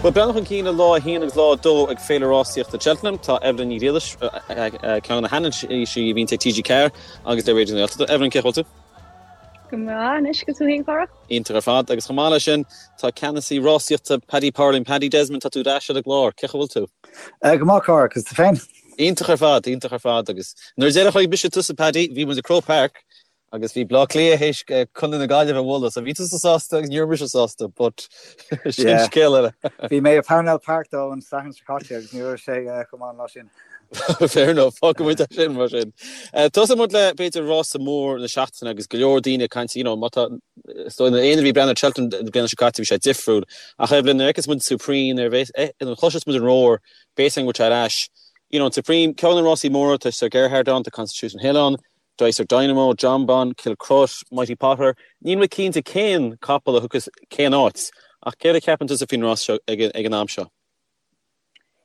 Bhuel, breathnú chun cinn le lá 1 agus lá 2 ag Féile Rásaíochta Cheltenham, tá Evelyn Ní Ghriallais, ceann de na hanailísí a bhíonns ag TG4 agus le Raidió na Gaeltachta. Evelyn, cén chaoi a bhfuil tú? Go maith anois, agus tú féin, a Chárthach? Iontach ar fad. Agus chomh maith leis sin, tá ceannasaí rásaíochta Paddy Power linn, Paddy Desmond, tá tú ar ais ar an gclár. Cén chaoi a bhfuil tú? Go maith, a Chárthaigh, agus tú féin? Iontach ar fad, iontach ar fad. Agus nuair a deireadh chonaic mise tusa, Paddy, bhí muid i Croke Park Agus bhí Bleá Cliath théis Contae na Gaillimhe a bhualadh, so bhí tusa sásta agus ní raibh mise sásta, but sin Yeah. scéal eile. Bhí mé i Parnell Park though an Satharn seo caite agus ní raibh sé chomh maith an lá sin. Fair enough, fágfaidh muid é sin mar sin. Tosóidh muid le b'fhéidir rása mór na seachtaine agus go leor daoine ag caint, you know, má tá, is dóigh na éinne a bhí ag breathnú ar Cheltenham na bliana seo caite bhí sé difriúil. Ach Evelyn, nuair a fheiceas muid Supreme, nuair a nuair a chloiseas muid an roar, beidh a fhios againn go bhfuil sé ar ais. You know, an Supreme, ceann de na rásaí móra, tá Sir Gerhard ann, tá Constitution Hill ann, Dysart Dynamo, Jonbon, Kilcruit, Mighty Potter, níl mé cinnte cén capall a thiocfas cén áit, ach céard a cheapann tusa faoin rás seo ag an am seo?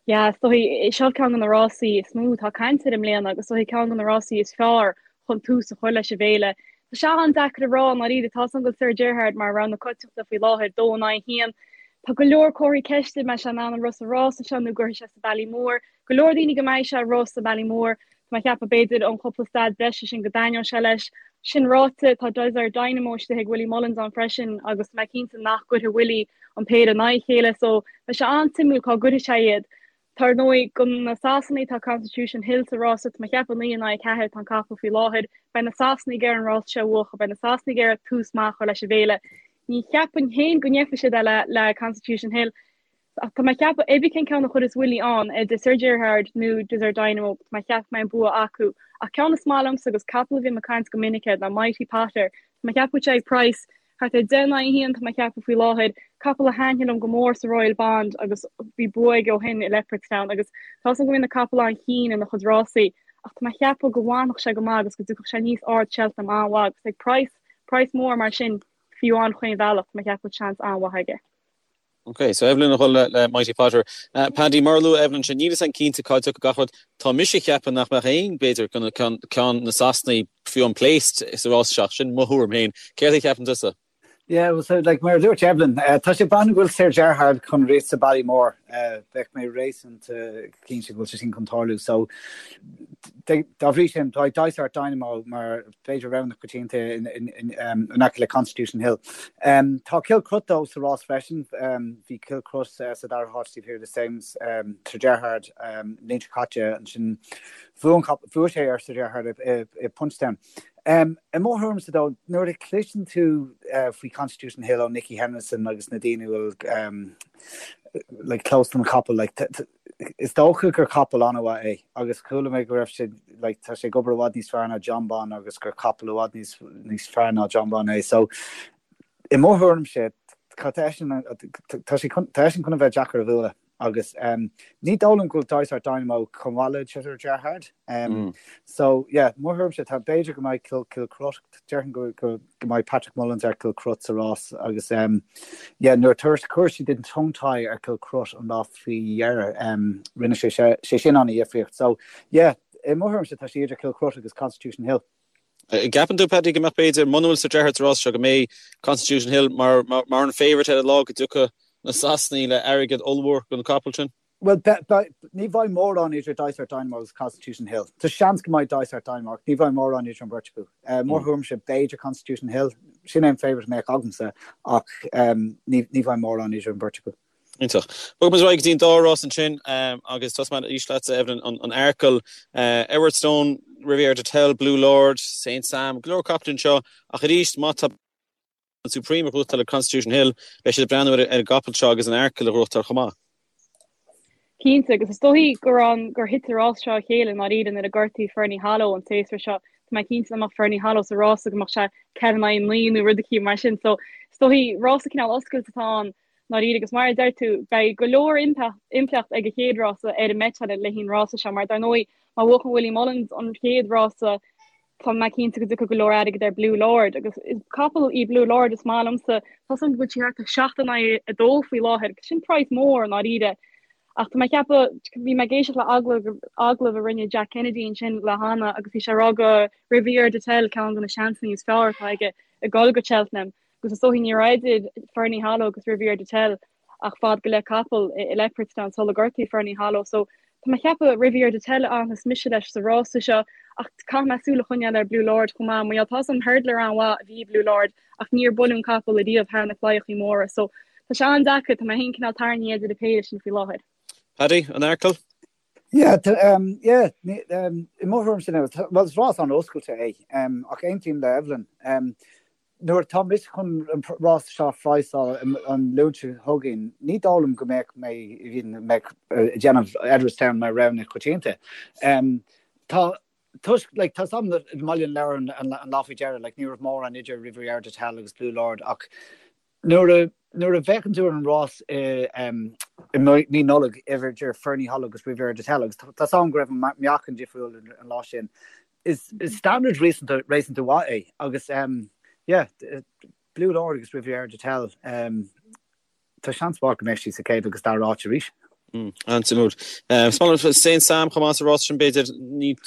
Yeah, is dóigh, seo ceann de na rásaí is mó atá caint air i mbliana agus is dóigh ceann de na rásaí is fearr chun tús a chur leis an bhféile. Tá sé an-deacair a rá i ndáiríre, tá a fhios agam go bhfuil Sir Gerhard mar rogha na coitianta faoi láthair, 2 in aghaidh 1. Tá go leor comharthaí ceiste, an mbeidh sé in ann an rith sa rása seo nó an gcuirfidh sé sa Ballymore. Go leor daoine go mbeidh sé ag rith sa Ballymore. Tá mé ag ceapadh b'fhéidir an cúpla stad breise sin go dtaitneoidh sé leis. Sin ráite, tá Dysart Dynamo istigh ag Willie Mullins ann freisin agus tá mé cinnte nach gcuirfidh Willie an péire in aghaidh a chéile so beidh sé an-suimiúil cá gcuirfidh sé iad. Tá ar ndóigh do na Sasanaigh tá Constitution Hill sa rása, tá mé ag ceapadh 9 in aghaidh 4 atá an capall faoi láthair. Beidh na Sasanaigh ag iarraidh an rása seo a bhuachan, beidh na Sasanaigh ag iarraidh tús maith a chur leis an bhféile. Ní cheapfainn féin go ndéanfaidh siad é le le Constitution Hill. Ach tá mé ag ceapadh, cibé cén ceann a chuirfeas Willie ann, idir Sir Gerhard nó Dysart Dynamo, tá mé ag ceapadh go mbeidh an bua acu. Ach ceann is maith liomsa agus capall a bhím ag caint go minic air ná Mighty Potter. Tá mé ag ceapadh go bhfuil sé ag praghas thart ar 10 in aghaidh 1, tá mé ag ceapadh faoi láthair. Capall a thaitnigh liom go mór sa Royal Bond agus bhí bua aige ó shin i Leopardstown agus tá 'fhios agam go mbíonn na capaill an-chinn ina chuid rásaí ach tá mé ag ceapadh go bhfanfadh sé go maith agus go dtiocfadh sé aníos ard Cheltenham an-mhaith agus ag praghas, praghas mór mar sin fiú amháin chaon bhealach, tá mé ag ceapadh go bhfuil seans an-mhaith aige. Ok, so Evelyn ag dul le Mighty Potter. Paddy, mar a luaigh Evelyn ansin, níl 'fhios a'm cinnte cá dtiocfaidh gach rud. Tá mise ag ceapadh nach mbeadh aon, b'fhéidir, ceann de na Sasanaigh fiú amháin placed sa rás seo, sin mo thuairim féin. Céard a cheapann tusa? Yeah, well, so, like, mar a dúirt Evelyn, tá sé ag breathnú go bhfuil Sir Gerhard chun rith sa Ballymore. Bheadh mé réasúnta cinnte go bhfuil sé sin chun tarlú. So, dá bhrí sin, tá Dysart Dynamo mar b'fhéidir rogha na coitianta in aice le Constitution Hill. Tá Kilcruit though sa rás freisin. Bhí Kilcruit sa dara háit taobh thiar de Sir Gerhard an bhliain seo caite. Ansin bhuaigh sé ar Sir Gerhard i Punchestown. I mo thuairimse though, nuair a chloiseann tú faoi Constitution Hill ó Nicky Henderson agus na daoine a bhfuil like close don chapall like Is dócha gur capall an-mhaith é agus chuala mé go raibh sé, like, tá sé ag obair i bhfad níos fearr ná Jonbon agus gur capall i bhfad níos, níos fearr ná Jonbon é. So, i mo thuairimse, tá eisean, tá sé chun, tá eisean chun a bheith deacair a bhualadh agus um, ní dóigh liom go bhfuil Dysart Dynamo chomh maith le Sir Gerhard. Um, So, yeah, mo thuairimse, tá b'fhéidir go mbeidh Kil, Kilcruit, déarfainn go, go, go mbeidh Patrick Mullins ar Kilcruit sa rás agus um, yeah, nuair a chuir siad an tongue tie ar Kilcruit an lá faoi dheireadh um, rinne sé sé sin an-dhifríocht. So yeah, i mo thuairimse tá sé idir Kilcruit agus Constitution Hill. Gceapann tú, Paddy, go mbeadh b'fhéidir, muna bhfuil Sir Gerhard sa rás seo, go mbeidh Constitution Hill mar, mar, mar an favourite ar an lá go dtiocfaidh na Sasanaigh le airgead ollmhór don capall sin? Bhuel, ní bheidh mórán idir Dysart Dynamo agus Constitution Hill. Tá seans go mbeidh Dysart Dynamo ach ní bheidh mórán idir an bheirt acu. Mo thuairimse, b'fhéidir Constitution Hill. Sin é an favourite a mbeadh agamsa ach ní bheidh mórán idir an bheirt acu. Iontach. Bogfaidh muid ar aghaidh go dtí an dá rás ansin agus tosóidh mé arís leatsa, Evelyn, an Arkle, Edwardstone, Riviere D'Etel, Blue Lord, Saint Sam, go leor capaill anseo ach arís má tá an Supreme ag gnóthachtáil le Constitution Hill, beidh siad ag breathnú ar an gcapall seo agus an Arkle a ghnóthachtáil chomh maith. Cinnte, agus is dóichí gur an gur thit an rás seo a chéile i ndáiríre nuair a gortaíodh Ferny Hollow an séasúr seo. Tá mé cinnte dá mbeadh Ferny Hollow sa rása go mbeadh sé 4 in aghaidh 9 nó rud eicínt mar sin. So is dóichí rása cineál oscailte atá ann i ndáiríre agus mar a deir tú, beidh go leor impleacht ag an chéad rása ar an mbeiteáil le haghaidh an rása seo mar dar ndóigh má bhuachann Willie Mullins an chéad rása Tá mé cinnte go dtiocfaidh go leor airgid ar Blue Lord agus is capall í Blue Lord is maith liomsa. Tá 'fhios a'm go bhfuil sí thart ar 7 in aghaidh 2 faoi láthair agus sin praghas mór i ndáiríre. Ach tá mé ag ceapadh, bhí mé ag éisteacht le agallamh, agallamh a rinne Jack Kennedy ansin le Hannah agus bhí sé ag rá go Riviere D'Etel ceann de na seansanna is fearr atá aige ag dul go Cheltenham agus is dóichí ní raibh idir Ferny Hollow agus Riviere D'Etel. ach fad go leith capall i Leopardstown sular gortaíodh Ferny Hollow so tá mé ag ceapadh Riviere D'Etel a fhanfas mise leis sa rása seo ach caithfidh mé súil a choinneáil ar Blue Lord chomh maith mar gheall tá a fhios agam hurdler an-mhaith a bhí i Blue Lord ach níor buaileadh an capall ariamh thar na claíochaí móra so tá sé an-deacair, tá mé féin cineál tarraingthe idir an péire sin faoi láthair. Paddy, an Earcail? Yeah, um, yeah, um, i mo thuairimse now, well, is rás an-oscailte é, um, ach aontaím le Evelyn. Um, nuair atá mise chun an rás seo a phraghsáil an Luan seo chugainn, ní dóigh liom go mbeadh mé mbeadh ag déanamh Edwardstown mar rogha na coitianta. Um, tá toisc, like, tá a fhios agam i mBaile an Lobhair an, an lá faoi dheireadh, like, ní raibh mórán idir Riviere D'Etel agus Blue Lord ach Nuair a nuair a bhféachann tú ar an rás i i mí Nollag idir Ferny Hollow agus Riviere D'Etel agus tá a fhios agam go raibh an meáchan difriúil an lá sin, is is standard réasúnta réasúnta mhaith é agus yeah Blue Lord agus Riviere D'Etel tá seans mhaith go mbeidh siad sa chéad agus dara áit arís. An-suimiúil. Is maith liom Saint Sam chomh maith sa rás sin b'fhéidir.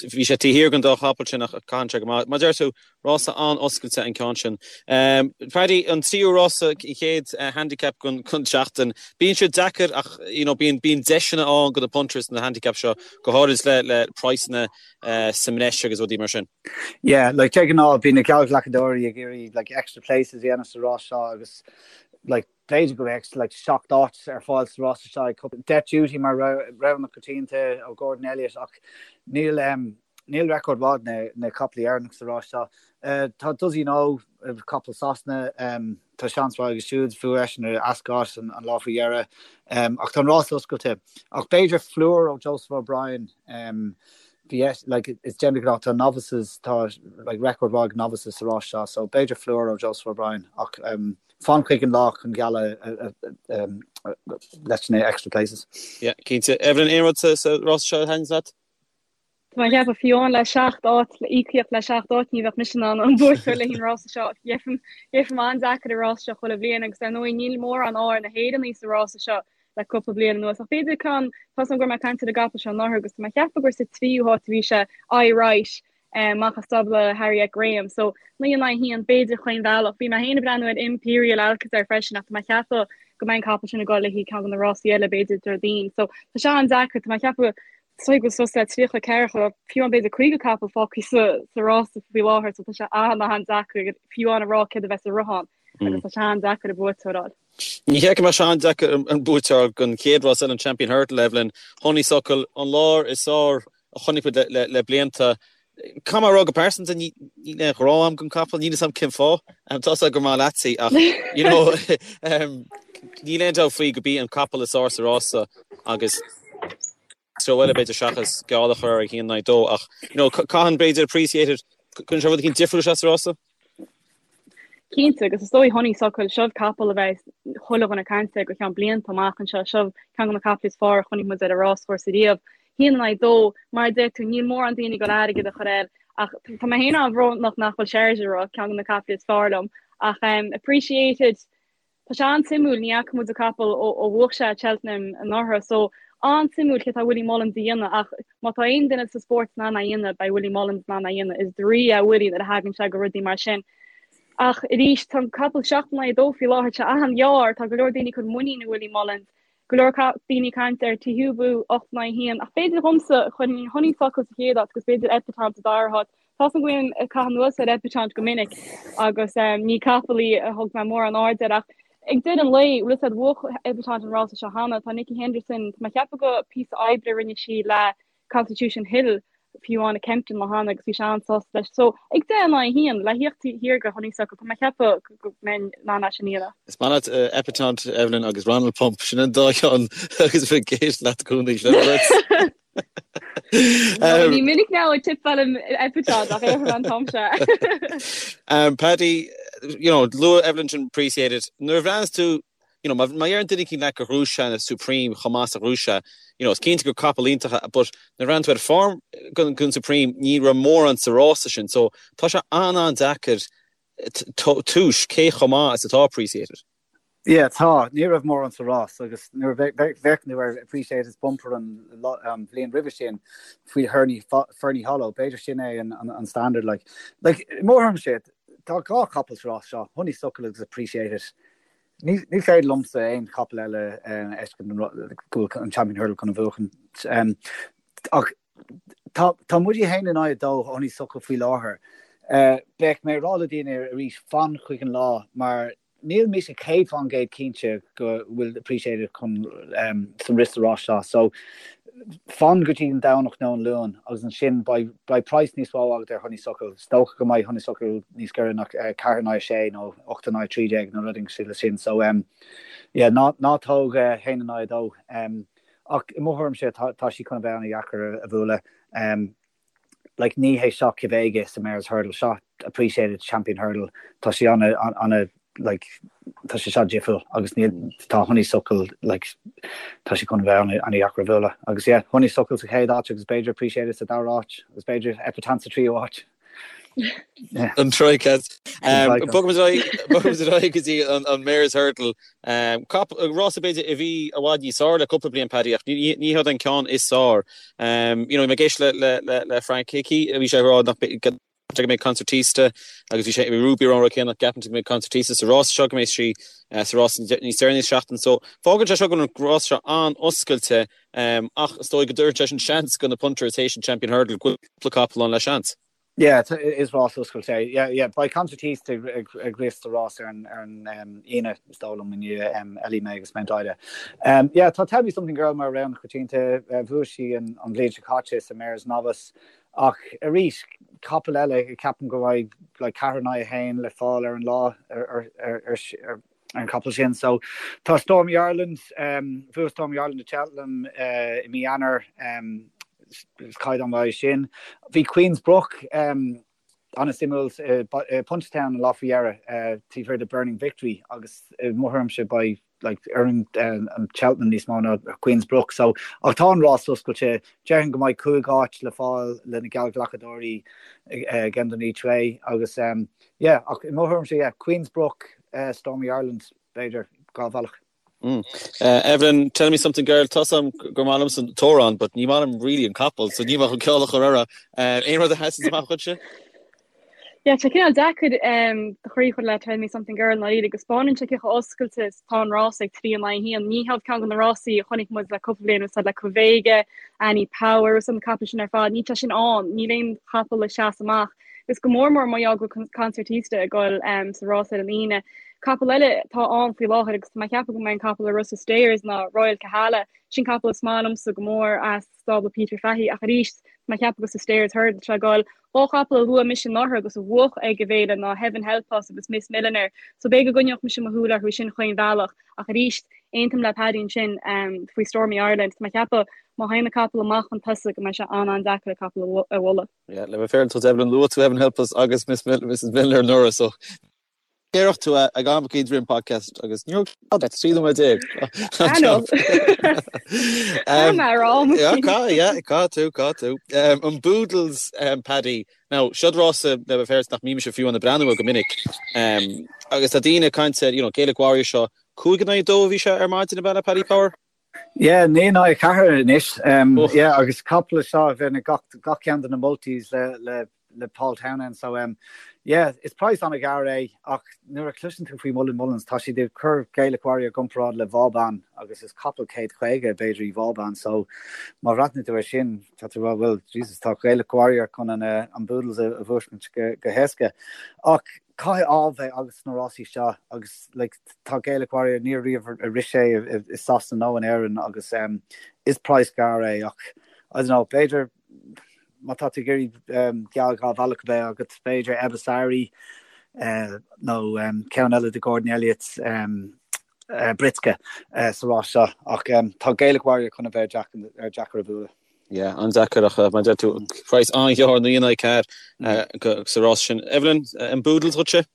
Bhí sé taobh thiar den dá chapall sin ach caitheann sé go maith. Mar a deir tú, rása an-oscailte an ceann sin. Paddy, an tríú rása, an chéad handicap den tseachtain. Bíonn siad deacair ach you know bíonn bíonn deiseanna ann do na punters na handicap seo, go háirid le le praghsanna sa mbreis agus rudaí mar sin. Yeah, like de ghnáth bíonn na geallghlacadóirí ag iarraidh like extra places a dhéanamh sa rás seo agus like B'fhéidir go mbeadh like 7 áit ar fáil sa rása seo ag cúpla Death Duty mar rogha na coitianta ó Gordon Elliott ach níl níl record mhaith na na capaillí Éireannach sa rás seo. Tá Does He Know capall Sasana tá seans mhaith aige siúd bhuaigh eisean ar Ascot an lá faoi dheireadh ach tá an rás oscailte. Ach b'fhéidir Fleur ó Joseph O'Brien bhí like is de ghnáth tá novices tá like record mhaith ag novices sa rás seo so b'fhéidir Fleur ó Joseph O'Brien ach Fan chuig an lá chun gealladh leis na extra places. Yeah, cinnte. Evelyn, aon rud sa rás seo a thaitníonn leat? Tá mé ag ceapadh fiú amháin le seacht áit, le íocaíocht le seacht áit, ní bheadh mise in ann an buaiteoir le haghaidh an rása seo. Gheibhim an-deacair an rás seo chuile bhliain agus ar ndóigh níl mórán ádh ar na hÉireannaigh sa rása seo le cúpla bliain anuas. Ach b'fhéidir ceann, tá a fhios agam go raibh mé ag caint ar an gcapall seo anuraidh agus tá mé ag ceapadh gur sa tríú háit a bhí sé, Aye Right. amach as stábla Harriet Graham. So, 9 in aghaidh 1, b'fhéidir chaon bhealach. Bhí mé féin ag breathnú ar Imperial Alcazar freisin ach tá mé ag ceapadh go mbeidh an capall sin ag dul le haghaidh ceann de na rásaí eile, b'fhéidir Déardaoin. So, tá sé an-deacair, tá mé ag ceapadh is dóigh go bhfuil suas le 34, fiú amháin b'fhéidir 50 capall fágtha sa sa rása faoi láthair, so tá sé an-an-deacair fiú amháin a rá céard a bheas sa rothán agus tá sé an-deacair an buaiteoir a fháil. Ní hé go mbeadh sé an-deacair an buaiteoir don chéad rás eile, an Champion Hurdle, Evelyn, Honeysuckle, an láir is fearr a chonaic muid le blianta. Caithfidh mé a rá go pearsanta, níl aon ghrá agam don capall, níl fhios agam cén fáth. Tá fhios agam gur maith leatsa í ach you know níl aon dabht faoi go b'í an capall is fearr sa rása agus treo eile b'fhéidir seachas geall a chur ar 1-2 ach you know caitheann b'fhéidir Appreciate It, cuireann sé rud eicínt difriúil isteach sa rása. Cinnte, agus is dóigh Honeysuckle, seo capall a bheidh chuile dhuine ag caint air go ceann blianta amach anseo. Seo ceann de na caiple is fearr a chonaic muid ar an ráschúrsa riamh. Haon in aghaidh dó, mar a deir tú, níl mórán daoine ag dul airgead a chur air ach tá mé féin an-bhrónach nach bhfuil Chargeur, ceann de na caiple is fearr liom. Ach Appreciate It, Tá sé an-suimiúil, ní fhaca muid an capall ó bhuaigh sé Cheltenham anuraidh, so an-suimiúil céard tá Willie Mullins a dhéanamh ach má tá aon duine sa spórt in ann é a dhéanamh, beidh Willie Mullins in ann é a dhéanamh. Is draoi é Willie nuair a thagann sé go rudaí mar sin. Ach arís, tá an capall 7 in aghaidh 2 faoi láthair, tá sé an-ghearr, tá go leor daoine ag cur muinín i Willie Mullins, go leor daoine ag caint ar Teahupoo 8 in aghaidh 1, ach b'fhéidir dhomsa, chuirfinn Honeysuckle sa chéad áit agus b'fhéidir Epatante sa dara háit. Tá 's agam go mbím ag caitheamh anuas ar Epatante go minic agus ní capall í a thug mé mórán aird air ach ag deireadh an lae, bhfuil 'fhios a'd, bhuaigh Epatante an rása seo cheana. Tá Nicky Henderson, tá mé ag ceapadh go píosa oibre a rinne sí le Constitution Hill fiú amháin i Kempton lá cheana agus bhí sé an-sásta leis. So, ag 10 in aghaidh 1, le thíocht thiar go Honeysuckle, tá mé ag ceapadh go mbeinn in ann é sin a dhéanamh. Is maith leat Epatante, Evelyn, agus Ronald Pump, sin an dá cheann agus bheith ag éisteacht leat i gcónaí, sin an rud. Ní minic ná ag tipeálaim Epatante ach ar an t-am seo. Paddy, you know, luaigh Evelyn sin Appreciate It. Nuair a bhreathnas tú, you know, má deireann duine eicínt leat gur ghnóthaigh sé an Supreme chomh maith is a ghnóthaigh sé, you know, is cinnte gur capall iontach é, but nuair a bhreathnaíonn tú ar form gon Supreme, ní raibh mórán sa rása sin, so tá sé an-an-deacair tomhas cé chomh maith is atá Appreciate It. Yeah, tá. Ní raibh mórán sa rás agus nuair a bhféachann tú ar Appreciate It's bumper an bhliain roimhe sin faoi Ferny Hollow, b'fhéidir sin é an standard. Like, like, i mo thuairimse, tá dhá chapall sa rás seo, Honeysuckle agus Appreciate It. Ní féidir liomsa aon chapall eile a fheiscint go bhfuil an Champion Hurdle chun a bhuachan. Ach tá tá muid 1 in aghaidh 2 Honeysuckle faoi láthair. Beidh mé ag rá le daoine arís fan chuig an lá mar níl mise 100% cinnte go bhfuil Appreciate It chun sa rith sa rás seo. So fan go dtí an Domhnach nó an Luan agus ansin beidh beidh praghas níos mó agat ar Honeysuckle. Is dócha go mbeidh Honeysuckle níos giorra ná 4 in aghaidh 6 nó 8 in aghaidh 13 nó rud éigin le sin. So yeah, ná ná tóg 1 in aghaidh 2. Ach i mo thuairimse tá tá sí chun a bheith an-dheacair a bhualadh. Like ní hé seo Quevega sa Mares Hurdle, seo Appreciate It Champion Hurdle, tá sé ana ana like tá sé seo difriúil agus níl tá Honeysuckle like tá sé chun a bheith ana ana dheacair a bhualadh agus yeah Honeysuckle sa chéad áit agus b'fhéidir Appreciate It sa dara áit agus b'fhéidir Epatante sa tríú áit. An Troika. Bogfaimid ar aghaidh go dtí an Mares Hurdle. Rása b'fhéidir a bhí i bhfad níos fearr le cúpla bliain Paddy ach ní hé an ceann is fearr. You know, bhí mé ag éisteacht le Frank Hickey, bhí sé ag rá nach go mbeidh Concertista agus bhí sé bhí Ruby ar an rud céanna nach gceapann sé go mbeidh Concertista sa rás seo go mbeidh sí sa rás níos deireanaí sa seachtain. So fágann sé seo go bhfuil an rás seo an-oscailte ach is dóigh go dtabharann sé sin seans go na punters théis an Champion Hurdle go bhfuil cúpla capall ann le seans. Yeah, is rás oscailte é. Yeah, yeah, beidh Concertista ag ag rith sa rás ar an ar an Aoine, is dóigh liom, i ndiaidh Ellie May agus Mount Ida. Yeah, tá Tell Me Something Girl mar rogha coitianta, bhuaigh sí an an bhliain seo caite sa Mares Novice, ach arís, capall eile, ceapaim go mbeidh like 4 in aghaidh 1 le fáil ar an lá ar ar ar ar ar an chapall sin. So tá Stormy Ireland, bhuaigh Stormy Ireland i Cheltenham i mí Eanáir, is caighdeán maith é sin. Bhí Queen's Brook an-suimiúil i Punchestown an lá faoi dheireadh, taobh thiar de Burning Victory agus i mo thuairimse beidh like oireann an Cheltenham níos mó ná Queen's Brook. So ach tá an rás oscailte, déarfainn go mbeidh 5 áit le fáil le na geallghlacadóirí ag end an each way agus yeah ach i mo thuairimse yeah Queen's Brook Stormy Ireland, b'fhéidir, 2 bhealach. Evelyn, tell me something girl, tá 's a'm gur maith liomsa an t-amhrán but ní maith liom really an capall so níl mé chun ceol a chur air. Aon rud a sheasann amach dhuitse? Yeah, tá cineál deacair do chroí a chur le Tell Me Something Girl i ndáiríre go 'spáineann sé cé chomh oscailte is atá an rás ag 3 in aghaidh 1. Ní hiad ceann de na rásaí a chonaic muid le cúpla bliain úsáid le Quevega, Annie Power, agus na capaill sin ar fad, níl sé sin ann, níl aon chapall ag seasamh amach. Agus go mór mór mar gheall go bhfuil Concertista ag dul sa rás ar an Aoine. Capall eile atá ann faoi láthair agus tá mé ag ceapadh go mbeidh an capall ag rith sa Stayers ná Royal Kahala. Sin capall is maith liomsa go mór as stábla Peter Fahy ach arís tá mé ag ceapadh gur sa Stayers Hurdle atá sé ag dul. Dhá chapall a luaigh mise anuraidh agus a bhuaigh ag an bhféile ná Heaven Help Us agus Miss Millionaire so b'fhéidir go gcoinneodh mise mo shúil orthu sin chaon bhealach ach arís aontaím le Paddy ansin faoi Stormy Ireland. Tá mé ag ceapadh má théann an capall amach chun tosaigh go mbeidh sé an-an-deacair an capall a bhualadh. Yeah, le bheith féaráilte Evelyn, luaigh tú Heaven Help Us agus Miss Mil Mrs Millionaire anuraidh, so déarfadh tú ag am eicínt roimh an podcast agus ní raibh 13 nóiméad. I know. Tá mé rá. Yeah, cá, yeah, cá tú, cá tú. Um, an Boodles, um, Paddy. Now, siod rása le bheith féaráilte nach mbímse fiú ag breathnú air go minic. Um, agus tá daoine ag caint ar, you know, Gaelic Warrior seo, 5 in aghaidh 2 a bhí sé ar maidin ab ea Paddy Power? Yeah, 9 in aghaidh 4 anois. Yeah, agus capall seo a bheith gach, gach ceann de na multis le, le, le Paul Townend. So, um, yeah, is praghas an-ghearr é, ach nuair a chloiseann tú faoi Mullin Mullins, tá siad ag cur Gaelic Warrior i gcomparáid le Vauban agus is capall 150 b'fhéidir í Vauban. So, má bhreathnaíonn tú air sin, tá tú rá, well, Jesus, tá Gaelic Warrior chun an, uh, an Boodles a, a bhuachaint go, go héasca. Ach caithfidh ádh bheith agat sna rásaí seo agus like tá Gaelic Warrior níor riamh a rith sé i Sasana nó in Éirinn agus um, is praghas gearr é ach I don't know b'fhéidir má tá tú ag iarraidh um, geall dhá bhealach a bheith agat b'fhéidir Ebasari uh, nó um, ceann eile de Gordon Elliott um, uh, Britske uh, sa rás seo ach um, tá Gaelic Warrior chun a bheith deacair a bhualadh. Yeah, an-deacair ach mar a deir tú praghas an-ghearr 9 in aghaidh 4 sa rás sin. Evelyn, an Boodles dhuitse?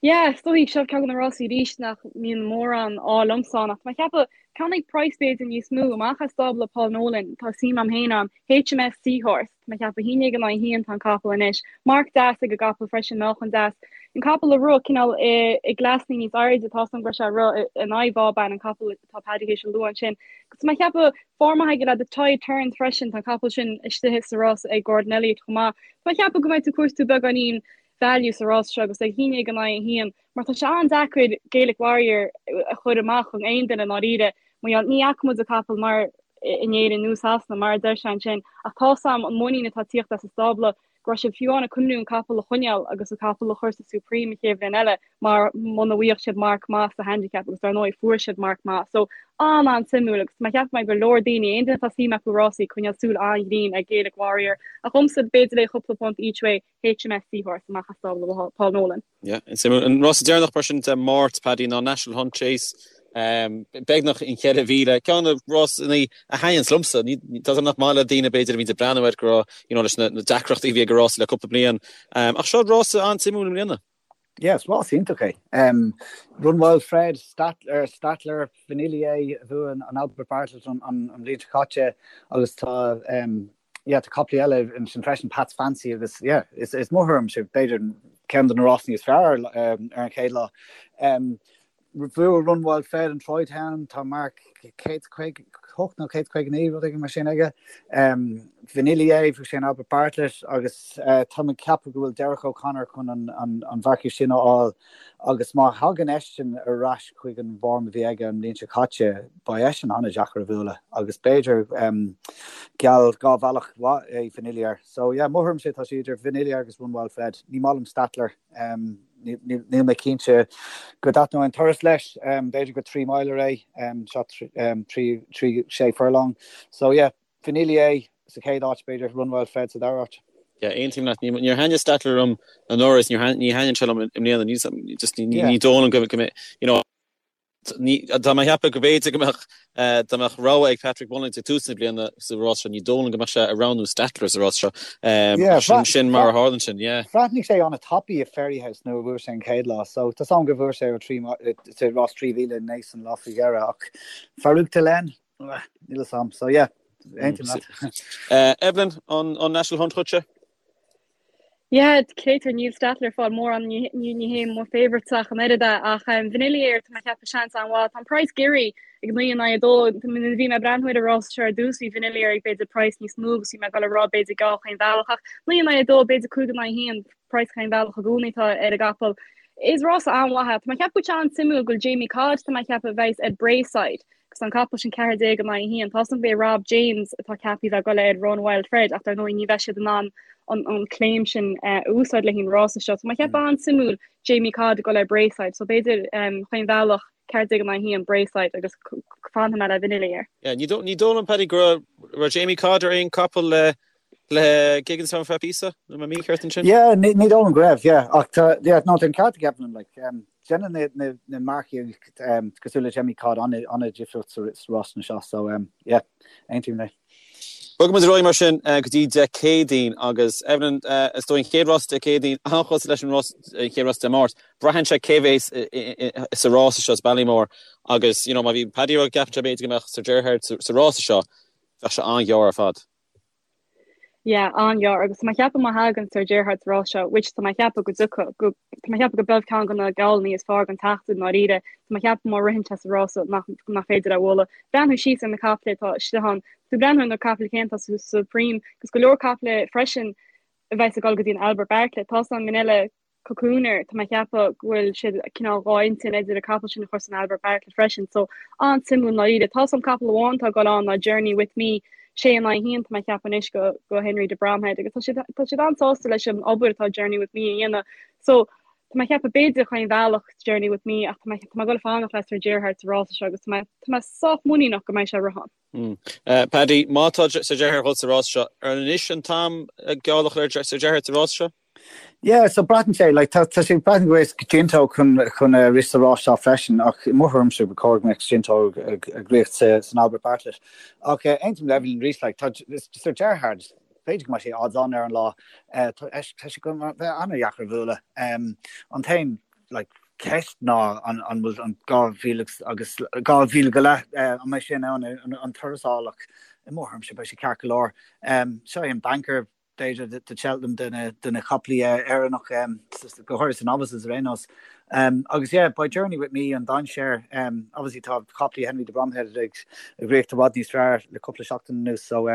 Yeah, is dóigh seo ceann de na rásaí arís nach mbíonn mórán ádh liomsa ann ach tá mé ag ceapadh ceann ag praghas b'fhéidir níos mó amach as stábla Paul Nolan tá suim a'm féin ann HMS Seahorse. Tá mé ag ceapadh 11 in aghaidh 1 tá an capall anois. Marc deas ag an gcapall freisin, meáchan deas. An capall ag rith cineál i gcleasanna níos airde, tá 's a'm go raibh sé ag rith in aghaidh Vauban, an capall atá Paddy théis a lua ansin. Agus tá mé ag ceapadh form maith aige le The Tide Turns freisin, tá an capall sin istigh sa rás ag Gordon Elliott chomh maith. Tá mé ag ceapadh go mbeidh tú ag cuartú beagáinín. value sa rás seo agus ag 11 in aghaidh 1 mar tá sé an-deacair Gaelic Warrior a chur amach chun aon duine i ndáiríre mar gheall ní fhaca muid an capall mar in Éirinn nó Sasana mar a deir sé ansin ach tá 's a'm an muinín atá ag tíocht as an stábla go raibh siad fiú amháin ag cuimhniú an capall a choinneáil agus an capall a chur sa Supreme an chéad bhliain eile mar muna bhfaigheadh siad marc maith sa handicap agus dar ndóigh fuair siad marc maith. So an-an-suimiúil agus tá mé ag ceapadh go mbeidh go leor daoine, aon duine atá suim acu i rásaí, coinneáil súil an-ghrinn ar Gaelic Warrior ach dhomsa b'fhéidir le chúpla punt each way HMS Seahorse amach as stábla Paul Nolan. Yeah, suimiúil. An rása deireanach mar sin Dé Máirt, Paddy, ná National Hunt Chase, beagnach an 4,000. Ceann de na rásanna a thaitníonns liomsa. Tá 's agam nach maith le daoine b'fhéidir a bhíonns ag breathnú air go raibh, you know, leis na deacrachtaí a bhí ag an rása le cúpla bliain. Ach seo rása an-suimiúil i mbliana. Yeah, is rás iontach é. Run Wild Fred, Stattler, Stattler, Vanillier a bhuaigh an Albert Bartlett an bhliain seo caite agus tá yeah, tá caiple eile ansin freisin, Pat's Fancy agus yeah, is, is mo thuairimse b'fhéidir ceann de na rásanna is fearr ar an chéad lá. Bhuaigh Run Wild Fred an Troy Town, tá marc 158 nó 159 rud éigin mar sin aige. Vanillier, bhuaigh sé an Albert Bartlett agus tá mé ag ceapadh go bhfuil Derek O'Connor chun an, an, an mharcaíocht sin a fháil agus má thagann eisean ar ais chuig an bhform a bhí aige an bhliain seo caite, beidh eisean an-deacair a bhualadh agus b'fhéidir geall dhá bhealach mhaith é Vanillier. So yeah, mo thuairimse tá sé idir Vanillier agus Run Wild Fred. Ní maith liom Stattler, níl mé cinnte go dtaitneoidh an turas leis, b'fhéidir gur 3 miler é, seo 3, 6 furlong. So yeah, Vanillier sa chéad áit, b'fhéidir Run Wild Fred sa dara háit. Yeah, aontaím leat. Níor thaitnigh Stattler liom anuraidh is ní thaitníonn sé liom i mbliana. Ní just ní dóigh liom go mbeidh, you know, tá mé ag ceapadh go mb'fhéidir go mbeadh dá mbeadh rogha ag Patrick Mullins ag tús na bliana sa rás seo, ní dóigh liom go mbeadh sé ag roghnú Stattler sa rás seo. Yeah, Sin sin mar a tharlaíonn sin, yeah. Bhreathnaigh sé an-tapaidh i Fairyhouse nuair a bhuaigh sé an chéad lá, so tá 's agam gur bhuaigh sé ó 3 sa rás 3000 i Naas an lá faoi dheireadh ach Farouk D'Alene, Níl a fhios a'm. So yeah, aontaím leat. Evelyn, an National Hunt dhuitse? Yeah, créatúr, níl Stattler ag fáil mórán, ní hé mo favourite ach an oiread é, ach Vanillier, tá mé ag ceapadh seans an-mhaith. Tá an praghas giorraithe ag 9 in aghaidh 2. Nuair a bhí mé ag breathnú ar an rás seo ar dtús, bhí Vanillier ag b'fhéidir praghas níos mó agus bhí mé ag dul a rá b'fhéidir geall chaon bhealach ach 9 in aghaidh 2, b'fhéidir 5 in aghaidh 1, praghas chaon bhealach i gcónaí atá ar an gcapall. Is rása an-mhaith é. Tá mé ag ceapadh go bhfuil sé an-suimiúil go bhfuil Jamie Codd, tá mé ag ceapadh a bheas ar Braeside. Agus an capall sin 14 in aghaidh 1. Tá 's agam gurb é Rob James atá ceaptha a bheith ag dul ar Run Wild Fred ach dar ndóigh ní bheidh siad in ann an claim sin a úsáid le haghaidh an rása seo. So tá mé ag ceapadh an-suimiúil Jamie Codd ag dul ar Braeside. So b'fhéidir chaon bhealach 14 in aghaidh 1 Braeside agus fanfaidh mé le Vanillier. Yeah, ní dóigh liom Paddy go raibh Jamie Codd ar aon capall le le Gigginstown ar feadh píosa, nó an mé mícheart ansin? Yeah, ní dóigh liom go raibh, yeah. Ach tá, yeah, no, tá an ceart ag Evelyn, like, um, déanann na, na, na marcaigh um, cosúil le Jamie Codd an-difríocht sa, sa rásanna seo, so, um, yeah, aontaím léi. Bogfaidh muid ar aghaidh mar sin uh, go dtí Dé Céadaoin agus Evelyn, uh, is dóigh an chéad rás Dé Céadaoin an-chosúil leis an rás, an chéad rás Dé Máirt. Braitheann sé cé bhéas sa rása seo sa Ballymore agus you know, má bhí Paddy ag rá go gceapann sé b'fhéidir go mbeadh Sir Gerhard sa, sa rása seo, bheadh sé an-ghearr ar fad. Yeah, an-ghearr agus tá mé ag ceapadh má thagann Sir Gerhard sa rás seo, which tá mé ag ceapadh go dtiocfaidh, go, tá mé ag ceapadh go b'é ceann de na geallanna is fearr den tseachtain i ndáiríre, tá mé ag ceapadh má ritheann sé sa rás seo nach, nach féidir é a bhualadh. Breathnú síos ar na caiple atá istigh ann, tú breathnú ar na caiple céanna atá sa Supreme agus go leor caiple freisin a bheas ag dul go dtí an Albert Bartlett. Tá 's agam Minella Cocooner, tá mé ag ceapadh go bhfuil siad cineál dhá intinn idir an capall sin a chur san Albert Bartlett freisin, so an-suimiúil i ndáiríre. Tá 's agam capall amháin atá ag dul ann ná Journey With Me, sé in aghaidh a haon tá mé ag ceapadh anois go go Henry de Bromhead agus tá siad tá siad an-sásta leis an obair atá Journey With Me a dhéanamh. So tá mé ag ceapadh b'fhéidir chaon bhealach Journey With Me ach tá mé tá mé ag dul fanacht le Sir Gerhard sa rása seo agus tá mé tá mé sách muiníneach go mbeidh sé ag rith ann. Paddy, má tá Sir Gerhard ag dul sa rás seo, ar anois an t-am geall a chur ar Sir Gerhard sa rás seo? Yeah, so braitheann sé, like, tá, tá sé braitheann go bhfuil Ginto chun, chun uh, rith sa rás seo freisin, ach i mo thuairimse ba chóir go mbeadh Ginto ag, ag rith sa, san Albert Bartlett. Ach uh, aontaím le Evelyn arís, like, tá Sir Gerhard, b'fhéidir go mbeidh sé odds on ar an lá, uh, tá, tá sé go bheith an-dheacair a bhualadh. Um, an t-aon, like, ceist ná an, an bhfuil an 2000 agus 2000 go leith, uh, an mbeidh sé in ann an, an turas a fháil, ach i mo thuairimse beidh sé ceart go leor. Um, seo é an banker b'fhéidir do Cheltenham de na caiplí Éireannach, go háirithe sa novices ar aon nós. Agus yeah, beidh Journey With Me an dainséar. Obviously tá caiplí Henry de Bromhead ag rith i bhfad níos fearr le cúpla seachtain anuas so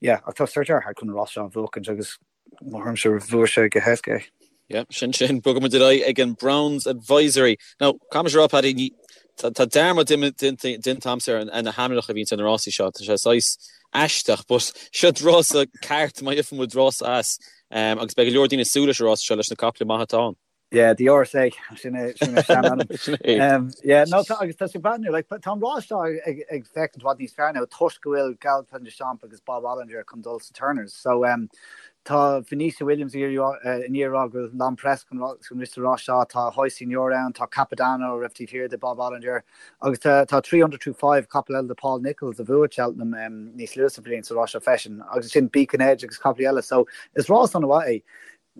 yeah, ach tá Sir Gerhard chun an rás seo a bhuachaint agus mo thuairimse bhuafaidh sé go héasca é. Yeah, sin sin, bogfaidh muid ar aghaidh ag an Browns Advisory. Now, caithfidh mise a rá, Paddy, ní, tá, tá dearmad déanta agamsa ar na hainmneacha a bhíonns ar na rásaí seo. Tá sé saghas aisteach, but seo rása ceart má gheobhaidh muid rása as, um, agus beidh go leor daoine ag súil leis an rása seo leis na caiple maithe atá ann. Yeah, the RSA, sin é, sin é sean-ainm. Sin é. Um, yeah, no, tá, agus tá sé breathnú, like, tá an rás seo ag, ag féachaint i bhfad níos fearr now toisc go bhfuil Galopin Des Champs agus Bob Olinger chun dul sa Turners. So, um, Tá Venetia Williams i ndiaidh a rá go bhfuil L'Homme Presse chun rith sa rás seo, tá Ahoy Senor ann, tá Capodanno a raibh taobh thiar de Bob Olinger agus tá Threeunderthrufive, capall eile de Paul Nicholls a bhuaigh Cheltenham níos luaithe sa bhliain sa rás seo freisin agus ansin Beacon Edge agus capaillí eile. So is rás an-mhaith é.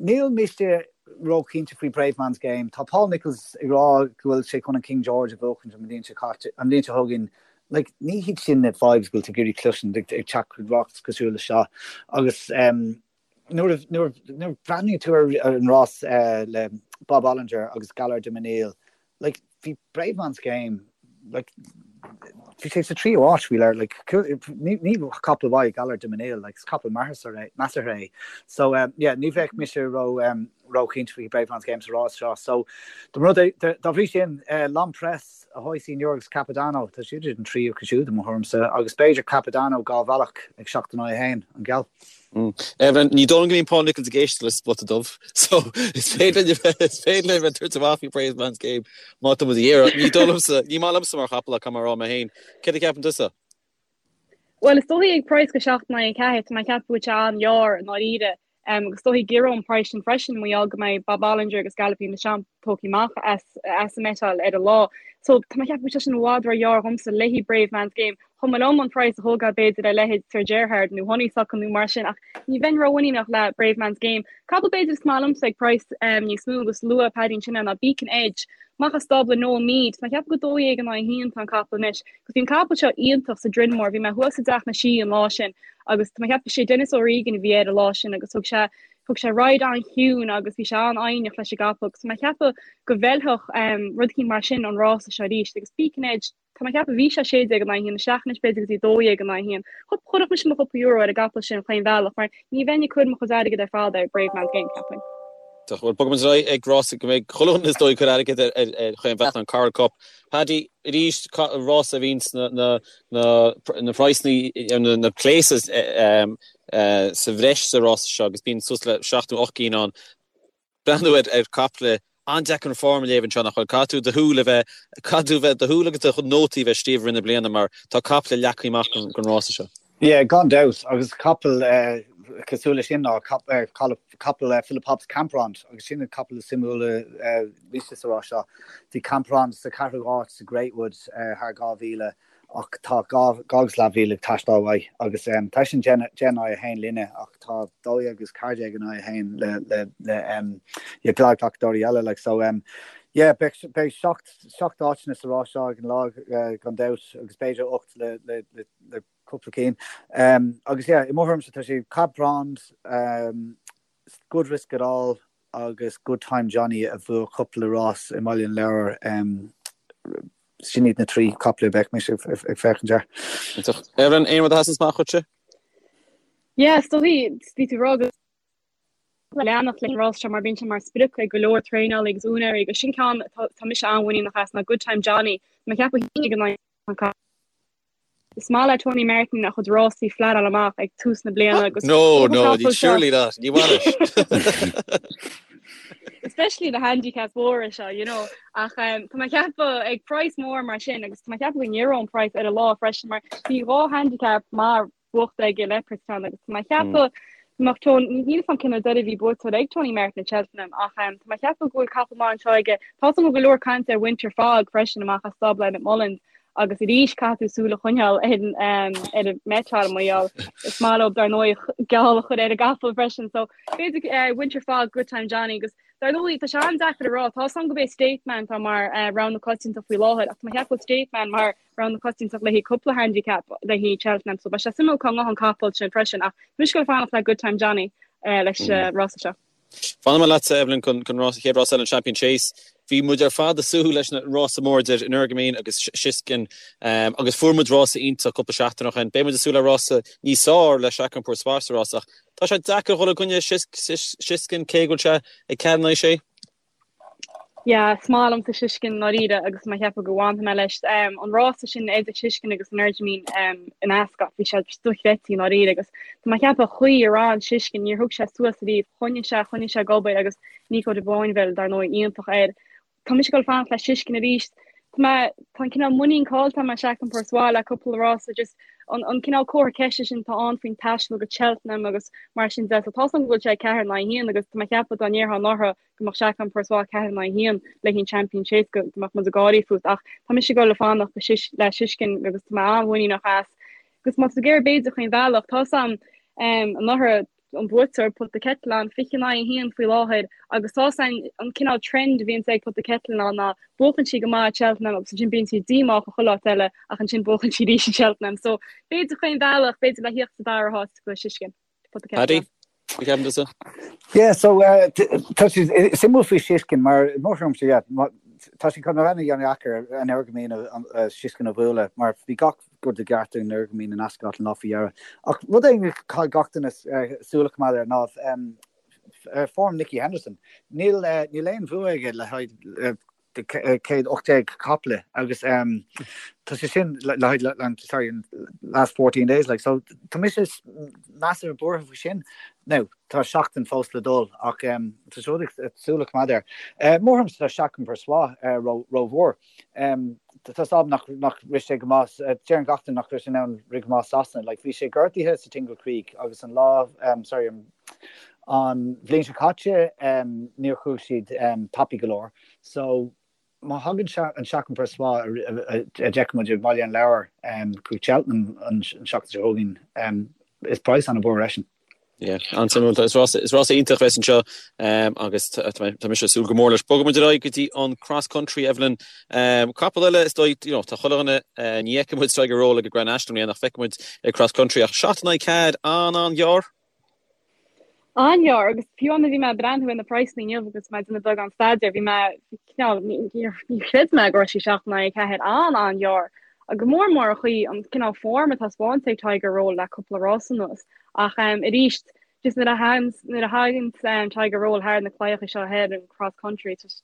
Níl mise róchinnte faoi Bravemansgame. Tá Paul Nicholls ag rá go bhfuil sé chun an King George a bhuachaint an bhliain seo caite, an bhliain seo chugainn. Like, ní hiad sin na vibes go bhfuil tú ag iarraidh cloisint ag ag teacht chuig rás cosúil le seo. Agus um, nuair a nuair nuair a bhreathnaíonn tú ar ar an rás uh, le Bob Olinger agus Gaillard Du Mesnil, like, bhí Bravemansgame, like, bhí sé sa tríú áit faoi leir, like, ní ní capall maith Gaillard Du Mesnil, like, is capall measartha é, measartha é. So, um, yeah, ní bheadh mise ró um, róchinnte faoi Bravemansgame sa rás seo. So, dá rud é, dá bhrí sin, uh, L'Homme Presse, Ahoy Senor agus Capodanno, tá siad an tríú acu siúd i mo thuairimse, agus b'fhéidir Capodanno dhá bhealach ag 7 in aghaidh 1, an geall. Evelyn, ní dóigh liom go mbíonn Paul Nicholls ag éisteacht le Spota Dubh, so is féidir linn a bheith, is féidir linn a bheith ag tabhairt amach faoi Bravemansgame má tá muid ag iarraidh. Ní dóigh liomsa, ní maith liomsa mar chapall ach caithfidh mé a rá mé féin. Céard a cheapann tusa? Bhuel, is dóichí ag praghas go 7 in aghaidh 4, tá mé ag ceapadh go bhfuil sé an-ghearr i ndáiríre. Agus is dóichí go gciorródh an praghas sin freisin mar gheall go mbeidh Bob Olinger agus Galopin Des Champs tógtha amach as as an mbeiteáil ar an lá. So tá mé ag ceapadh go bhfuil sé sin i bhfad ró-ghearr dhomsa le haghaidh Bravemansgame. Chomh maith liom an praghas a thógáil b'fhéidir ar leithéid Sir Gerhard nó Honeysuckle nó mar sin ach ní bheinn rómhuiníneach le Bravemansgame. Capall b'fhéidir is maith liomsa ag praghas níos mó agus luaigh Paddy ansin é ná Beacon Edge. Amach as stábla Noel Meade. Tá mé ag ceapadh go 12 in aghaidh 1 tá an capall anois. Agus bhí an capall seo iontach sa Drinmore, bhí mé thuas i dTeach na Sí an lá sin agus tá mé ag ceapadh sé Denis O'Regan a bhí air an lá sin agus thug sé thug sé ride an-chiúin agus bhí sé an-fhoighneach leis an gcapall agus tá mé ag ceapadh go bhfeilfeadh um, rud eicínt mar sin an rása seo arís agus Beacon Edge tá mé ag ceapadh bhí sé 16 in aghaidh 1 isteach anois b'fhéidir go dtí 12 in aghaidh 1. Chuirfeadh mise mo chúpla euro ar an gcapall sin chaon bhealach mar ní bheinn ag cur mo chuid airgid ar fad ar Bravemansgame ceapaim. Bhuel, bogfaidh muid ar aghaidh ag rása go mbeidh chuile dhuine is dóigh ag cur airgid ar ar chaon bhealach an Coral Cup. Paddy, arís, rása a bhíonns na na praghsanna, na places sa bhreis sa rása seo agus bíonn suas le seacht nó 8 gcinn ann. Breathnú ar ar caiple an-deacair an form a léamh anseo nach bhfuil? Caithfidh tú do shúil a bheith, caithfidh tú bheith, do shúil agus do nótaí a bheith scríofa i rith na bliana mar tá caiple leagtha amach don rása seo. Yeah, gan dabht, agus capall cosúil leis sin ná capall Philip Hobbs Camprond, agus sin an capall is suimiúla mise sa rás seo. Bhí Camprond sa ceathrú háit sa Greatwood thar 2,000 ach tá 2 agus leathmhíle ag teastáil uaidh agus tá sin 10 in aghaidh 1 linne ach tá 12 agus 14 in aghaidh 1 le le le glacadóirí eile like so yeah beidh beidh seacht seacht áiteanna sa rás seo ag an lá gan dabht agus b'fhéidir 8 le le le le cúpla cinn. Agus yeah, i mo thuairimse tá sé Camprond, Good Risk It All agus Good Time Johnny a bhuaigh cúpla rás i mBaile an Lobhair. Sin iad na trí chapall a bheadh mise ag féachaint air. Iontach. Evelyn, aon rud a sheasann amach dhuitse? Yeah, is dóichí, bhí tú ag rá go leanacht leis an rás seo mar bíonn sé mar sprioc ag go leor traenálaí agus úinéirí agus sin ceann tá mise an-mhuiníneach as ná Good Time Johnny. Tá mé ag ceapadh ag an Is maith le Tony Martin a chuid rásaí flatáil amach ag tús na bliana agus No, no, surely not. Ní bhainis. Especially the handicaps mhóra seo, you know. Ach um, tá mé ag ceapadh ag praghas mór mar sin agus tá mé ag ceapadh go n-éireoidh an praghas ar an lá freisin mar bhí dhá handicap maith buachta aige le Leopardstown agus tá mé ag ceapadh go mbeadh Tony, níl 'fhios a'm cén uair deiridh a bhí buaiteoir ag Tony Martin i Cheltenham ach um, tá mé ag ceapadh go bhfuil capall maith anseo aige. Tá go leor cainte ar Winter Fog freisin amach as stábla Emmet Mullins agus arís caithfidh tú súil a choinneáil ar an ar an mbeiteáil mar gheall is maith leo dar ndóigh geall a chur ar an gcapall freisin so b'fhéidir uh, Winter Fog Good Time Johnny agus dar ndóigh tá sé an-deacair a rá tá 'fhios a'm gurb é State Man tá mar uh, rogha na coitianta faoi láthair ach tá mé ag ceapadh go bhfuil State Man mar rogha na coitianta le haghaidh cúpla handicap le haghaidh Cheltenham so beidh sé suimiúil cá ngabhfaidh an capall sin freisin ach tá mise ag fanacht le Good Time Johnny uh, leis uh, mm. rása seo. Fanfaidh mé leatsa Evelyn chun chun rás chéad rás eile an Champion Chase. Bhí muid ar fad ag súil leis an rása mór idir Energumene agus Shishkin agus fuair muid rása iontach cúpla seachtain ó shin. Beidh muid ag súil le rása níos fearr le Chacun Pour Soi sa rás ach tá sé deacair dhul i gcoinne Shishkin cé go bhfuil sé ag 4 in aghaidh 6. Yeah, is maith liomsa Shishkin ndáiríre agus tá mé ag ceapadh go bhfanfaidh mé leis. An rása sin idir Shishkin agus Energumene in Ascot, bhí sé dochreidte i ndáiríre agus tá mé ag ceapadh an chaoi ar fhan Shishkin, níor thug sé suas ariamh, choinnigh sé, choinnigh sé ag obair agus Nico de Boinville, dar ndóigh, iontach air. Tá mise ag dul fanacht le Shishkin arís. Tá mé, tá an cineál muinín caillte agam as Chacun Pour Soi le cúpla rása, just an, an cineál comhartha ceiste sin atá ann faoin taisteal go Cheltenham agus mar sin de. So tá 's agam go bhfuil sé 4 in aghaidh 1 agus tá mé ag ceapadh dá ndéarfá anuraidh go mbeadh Chacun Pour Soi 4 in aghaidh 1 le haghaidh an Champion Chase go mbeadh muid ag gáirí fút ach tá mise ag dul ag fanacht le Shishkin agus tá mé an-mhuiníneach as. Agus má tá tú ag iarraidh b'fhéidir chaon bhealach, tá 's agam anuraidh an buaiteoir Put the Kettle On 20 in aghaidh 1 faoi láthair agus tá 's agam an cineál trend a bhíonns ag Put the Kettle On ná buachann sí go maith i Cheltenham agus ansin bíonn sí díomách chuile áit eile ach ansin buachann sí arís i Cheltenham. So b'fhéidir chaon bhealach, b'fhéidir le thíocht sa dara háit go Shishkin. Put the Kettle Paddy? On. Cad a cheapann tusa? Yeah, so uh, tá sé suimiúil faoi Shishkin mar mo thuairimse yeah, tá sé chun a bheith an-dheacair Energumene Shishkin a bhualadh mar bhí gach rud i gceart ag Energumene in Ascot an lá faoi dheireadh. Ach rud éigin a chaithfidh gach duine súil a choimeád air ná um, form Nicky Henderson. Níl uh, níl aon bhua aige le haghaidh uh, 118 caiple agus tá sé sin le haghaidh sorry last 14 days like so tá mise measartha buartha faoi sin. Now tá seachtain fós le dul ach tá sé rud súil a choimeád air. Mo thuairimse tá Chacun Pour Soi rómhór. Tá 's agam nach nach rith sé go maith deireann gach duine nach raibh sé in ann rith go maith Sasana like bhí sé gortaithe sa Tingle Creek agus an lá sorry an bhliain seo caite níor chuaigh siad tapaidh go leor. So, má thagann an Chacun Pour Soi a d'fheic muid i mBaile an Lobhair chuig Cheltenham an seachtain seo chugainn, is praghas an-mhór eisean. Yeah, an-suimiúil. Is rás is rás iontach a bheas anseo agus tá mise ag súil go mór leis. Bogfaidh muid ar aghaidh go dtí an cross country, Evelyn. Capall eile is dóigh, you know, tá chuile dhuine, ní fheicfidh muid Tiger Roll ag an Grand National i mbliana ach feicfidh muid ag cross country ach 7 in aghaidh 4 an-an-ghearr. An-ghearr, agus fiú amháin bhí mé ag breathnú ar na praghsanna inniu agus mé ag déanamh beagán staidéir, bhí mé cineál, níor chreid mé go raibh sé 7 in aghaidh 4, an-an-ghearr. Go mór mór an chaoi, an cineál form atá spáinte ag Tiger Roll le cúpla rás anuas. Ach arís, just nuair a thaganns, nuair a thaganns Tiger Roll thar na claíocha seo thoir, an cross country, just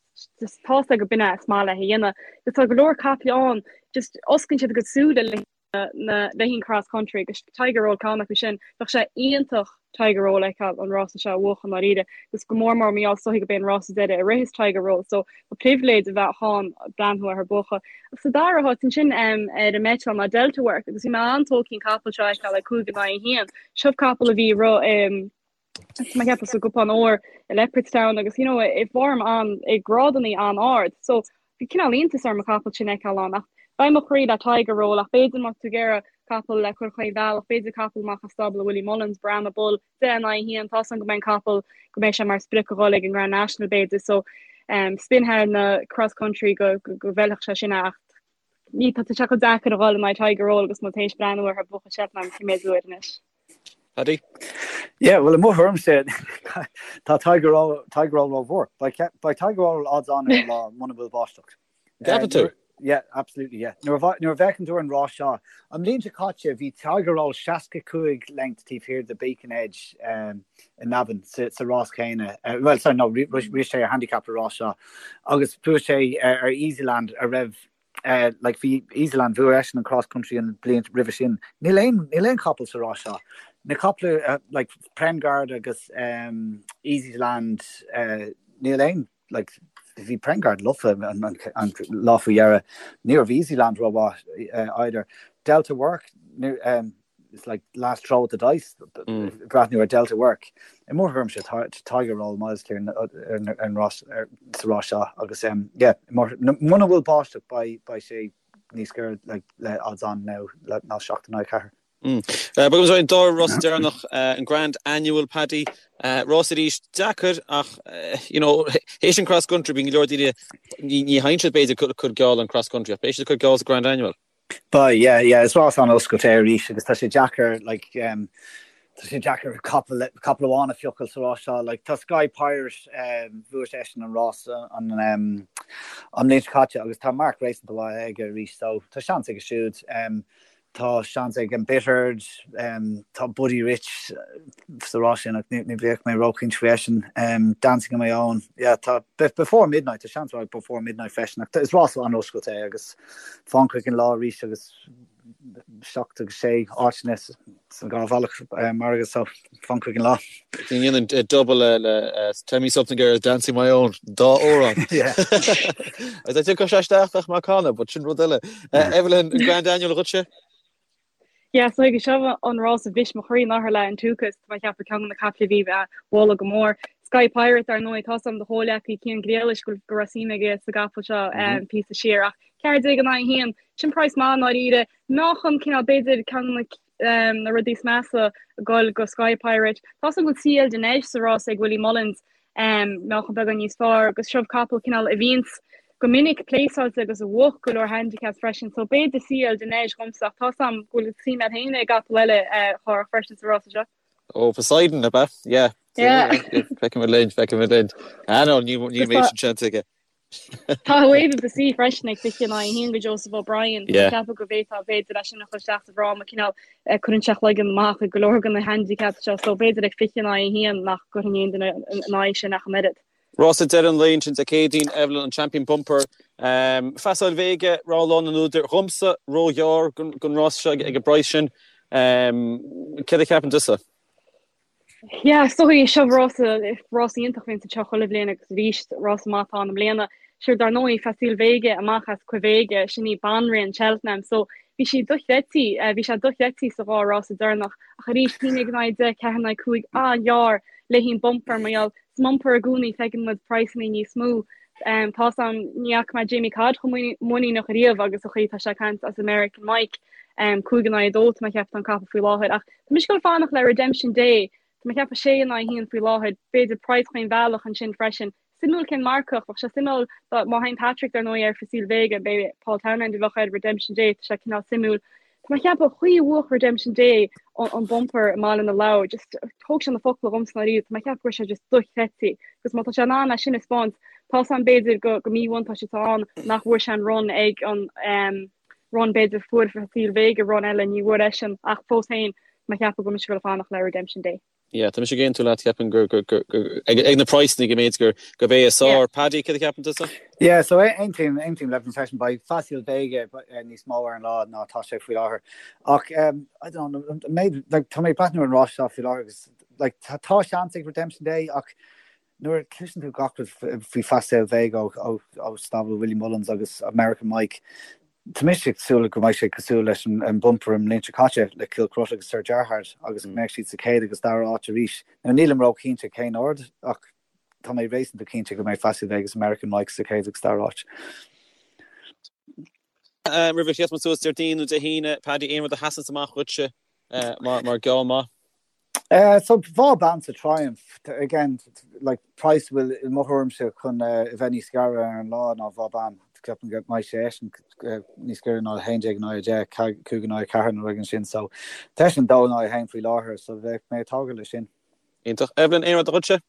tá's agat gurb in é is maith leis a dhéanamh. Agus tá go leor caiple ann, just osclaíonn siad a gcuid súile le na le haghaidh an cross country agus Tiger Roll ceann acu sin. Bheadh sé iontach Tiger Roll a fheiceáil an rása seo a bhuachan ndáiríre agus go mór mór mar gheall is dóichí gurb é an rása deiridh a rithfeas Tiger Roll so ba pribhléid a bheadh ann breathnú air ag buachan. Agus sa dara háit ansin ar an mbeiteáil ná Delta Work agus bhí mé an-tógtha an capall seo a fheiceáil ag 5 in aghaidh 1. Seo capall a bhí ag rith Tá mé ag ceapadh sa gcupán óir i Leopardstown agus you know i bhform an i grádannaí an-ard. So bhí cineál iontas orm an capall sin a fheiceáil ann ach beidh mo chroí le Tiger Roll ach b'fhéidir má tá tú ag iarraidh capall le cur chaon bhealach, b'fhéidir capall amach as stábla Willie Mullins, Brahma Bull, 10 in aghaidh 1, tá's agam go mbeidh an capall go mbeidh sé mar sprioc a dhul ag an Grand National b'fhéidir so um, spin thar na cross country go go, go bhfeilfeadh sé sin ach ní tá sé chomh deacair a dhul in aghaidh Tiger Roll agus muid théis breathnú air ag buachan Cheltenham cé mhéad uair anois. Paddy? Yeah, well i mo thuairimse tá Tiger Roll Tiger Roll rómhór. Beidh Tiger Roll odds on ar an lá muna bhfuil báisteach. Gceapann tú? Yeah, absolutely, yeah. Nuair a nuair a bhfeiceann tú an rás seo, an bhliain seo caite bhí Tiger Roll 65 length taobh thiar de Beacon Edge um, i Navan sa, sa rás céanna. Uh, well, sorry, no, rith sé ar handicap an rás seo. Agus bhuaigh sé ar, ar Easyland a raibh like bhí Easyland bhuaigh eisean an cross country an bliain roimhe sin. Níl aon níl aon chapall sa rás seo. Na caiple uh, like Prengarde agus um, Easyland uh, níl aon like bhí Prengarde lofa an, an, an lá faoi dheireadh. Ní raibh Easyland rómhaith uh, either. Delta Work ní, um, it's like last throw at the dice breathnú ar Delta Work. I mo thuairimse Tiger Roll miles clear ar an rás sa rás seo agus yeah muna bhfuil báisteach beidh sé níos giorra le odds on now ná 7 in aghaidh 4. Bogaimis ar an dara rás deireanach an Grand Annual Paddy. Rás arís deacair ach you know théis an cross country bíonn go leor daoine ní théann siad b'fhéidir cur geall an cross country ach beidh siad ag cur geall sa Grand Annual. Beidh, yeah, yeah, is rás an-oscailte é arís agus tá sé deacair, like, um, Tá sé deacair capall capall amháin a phiocáil sa rás seo. Like, tá Sky Pirate, um, bhuaigh seisean an rás an, um, an bhliain seo caite agus tá marc réasúnta mhaith aige arís, so tá seans aige siúd. Um, tá seans ag Embittered, um, tá Buddy Rich sa rás sin ach ní, ní bheadh mé róchinnte faoi eisean. Um, Dancing on my own. Yeah, tá Before Midnight, tá seans ag Before Midnight freisin ach is rás an-oscailte é agus fan chuig an lá arís agus 7 agus 6 áiteanna san dhá bhealach margadh so fan chuig an lá. Déanann double le Tell Me Something Girl, Dancing My Own, dá amhrán. Agus tiocfaidh sé isteach ach má canadh, but sin rud eile. Evelyn, an Grand Annual dhuitse? Yeah, so ag seo an rás a bhris mo chroí anuraidh le An Tukas, tá mé ag ceapadh ceann de na caiple a bhí á mholadh go mór. Sky Pirate, dar ndóigh, tá a fhios agam do chomhleacaí Cian Griallais go raibh suim aige sa gcapall seo píosa siar ach 14 in aghaidh 1, Sin praghas maith i ndáiríre. Meáchan cineál b'fhéidir ceann de na rudaí is measa ag goil go Sky Pirate. Tá a fhios agam go bhfuil Ciel de Neige sa rás ag Willie Mullins, meáchan beagán níos fearr agus seo capall cineál a bhíonns go minic pléasáilte agus a bhuach go leor handicaps freisin so b'fhéidir Ciel de Neige dhomsa ach tá a fhios agam go bhfuil suim agat féin i gcapall eile a Chárthach freisin sa rása seo. Ó Poseidon, ab ea? Yeah. Yeah. Feicfimid linn, feicfimid linn. Ah no, ní ní mbeidh sin seans aige. Tá Wave of the Sea freisin ag 20 in aghaidh 1 go Joseph O'Brien. Tá mé ag ceapadh go bhféadfá b'fhéidir é sin a chur isteach sa bhfráma cineál cuireann sé a chloigeann amach ag go leor de na handicaps seo so b'fhéidir ag 20 in aghaidh 1 nach gcuirfinn aon duine in aghaidh sin ach an oiread. Rása deireadh an lae ansin Dé Céadaoin, Evelyn, an Champion Bumper. Facile Vega, rogha lán an údair. Dhomsa, róghearr don rás seo ag an bpraghas sin. Céard a cheapann tusa? Yeah, is dóigh seo rása, rása iontach a bhíonns anseo chuile bhliain agus arís rása maith atá ann i mbliana. Sure, dar ndóigh, Facile Vega amach as Quevega, sin í banríon Cheltenham, so bhí sí dochreidte, bhí sé dochreidte sa dhá rása deireanach ach arís, 11 in aghaidh 10, 4 in aghaidh 5, an-ghearr le haghaidh an bumper mar gheall sa mbumper i gcónaí feiceann muid praghsanna níos mó. Tá a fhios agam, ní fhaca mé Jamie Codd chomh muiníneach ariamh agus an chaoi atá sé ag caint as American Mike, 5 in aghaidh 2 tá mé ag ceapadh tá an capall faoi láthair ach Tá mise ag dul fanacht le Redemption Day. Tá mé ag ceapadh 6 in aghaidh 1 faoi láthair. B'fhéidir praghas chaon bhealach ansin freisin. Suimiúil cén marcach. Bheadh sé suimiúil má théann Patrick dar ndóigh ar Facile Vega, b'é Paul Townend a bheadh ar Redemption Day. Tá sé cineál suimiúil. Tá mé ag ceapadh an chaoi a bhuach Redemption Day an bumper i mBaile na Lobhar. Just thóg sé na focla dhomsa ndáiríre. Tá mé ag ceapadh go raibh sé just dochreidte. Agus má tá sé in ann é sin a 'speáint, tá a fhios agam b'fhéidir go go míbhuntáiste atá ann nach bhfuair sé an run ag an run b'fhéidir fuair Facile Vega run eile ní bhfuair eisean ach fós féin tá mé ag ceapadh go bhfuil mise ag dul fanacht le Redemption Day. Yeah, tá mise ag aontú leat, ceapaim gur, gur, gur, gur, ag, ag na praghsanna go mb'fhéidir gur, gurb é is fearr. Paddy, céard a cheapann tusa? Yeah, so aontaím, aontaím le Evelyn freisin, beidh Facile Vega níos mó ar an lá ná tá sé faoi láthair. Ach, um, I don't know, méid, like, tá mé ag breathnú ar an rás seo faoi láthair agus, like, tá, tá seans ag Redemption Day ach Nuair a chloiseann tú gach rud faoi Facile Vega ó stábla Willie Mullins agus American Mike, tá mise ag súil go mbeidh sé cosúil leis an bumper an mbliain seo caite le Kilcruit agus Sir Gerhard agus go mbeidh siad sa chéad agus dara áit arís. Now nílim ró-chinnte cén ord ach tá mé réasúnta cinnte go mbeidh Facile Vega agus American Mike sa chéad agus dara áit. Roimh a sheas muid suas Déardaoin nó Dé hAoine, Paddy, aon rud a sheasanns amach dhuitse mar geall maith? So Vauban sa Triumph, again, like, praghas a bhfuil i mo thuairimse chun a bheith níos gaire ar an lá ná Vauban. Ceapaim go mbeidh sé eisean níos gaire ná 11 in aghaidh 10, 5 in aghaidh 4 nó rud éigin sin. So tá eisean 2 in aghaidh 1 faoi láthair, so bheadh mé ag tógáil leis sin. Iontach. Evelyn, aon rud dhuitse?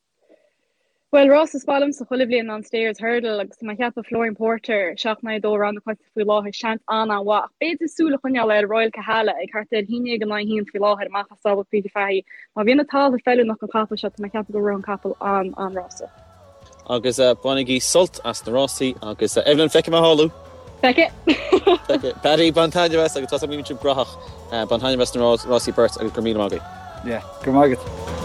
Bhuel, rás is maith liomsa chuile bhliain ná an Stayers Hurdle agus tá mé ag ceapadh Flooring Porter, 7 in aghaidh 2 rogha na coitianta faoi láthair, seans an-an-mhaith ach b'fhéidir súil a choinneáil ar Royal Kahala ag thart ar 11 in aghaidh 1 faoi láthair amach as stábla Peter Fahy. Má bhíonn an talamh feiliúnach don chapall seo tá mé ag ceapadh go rithfidh an capall an-an-rása. Agus bainigí sult as na rásaí agus Evelyn, feicfidh mé thall thú! Feicfidh! Feicfidh. Paddy, bain taitneamh as agus tá a fhios agam go mbíonn sibh graitheach. Bain taitneamh as na rásaí beirt agus go raibh míle maith agaibh. Yeah, go raibh maith agat.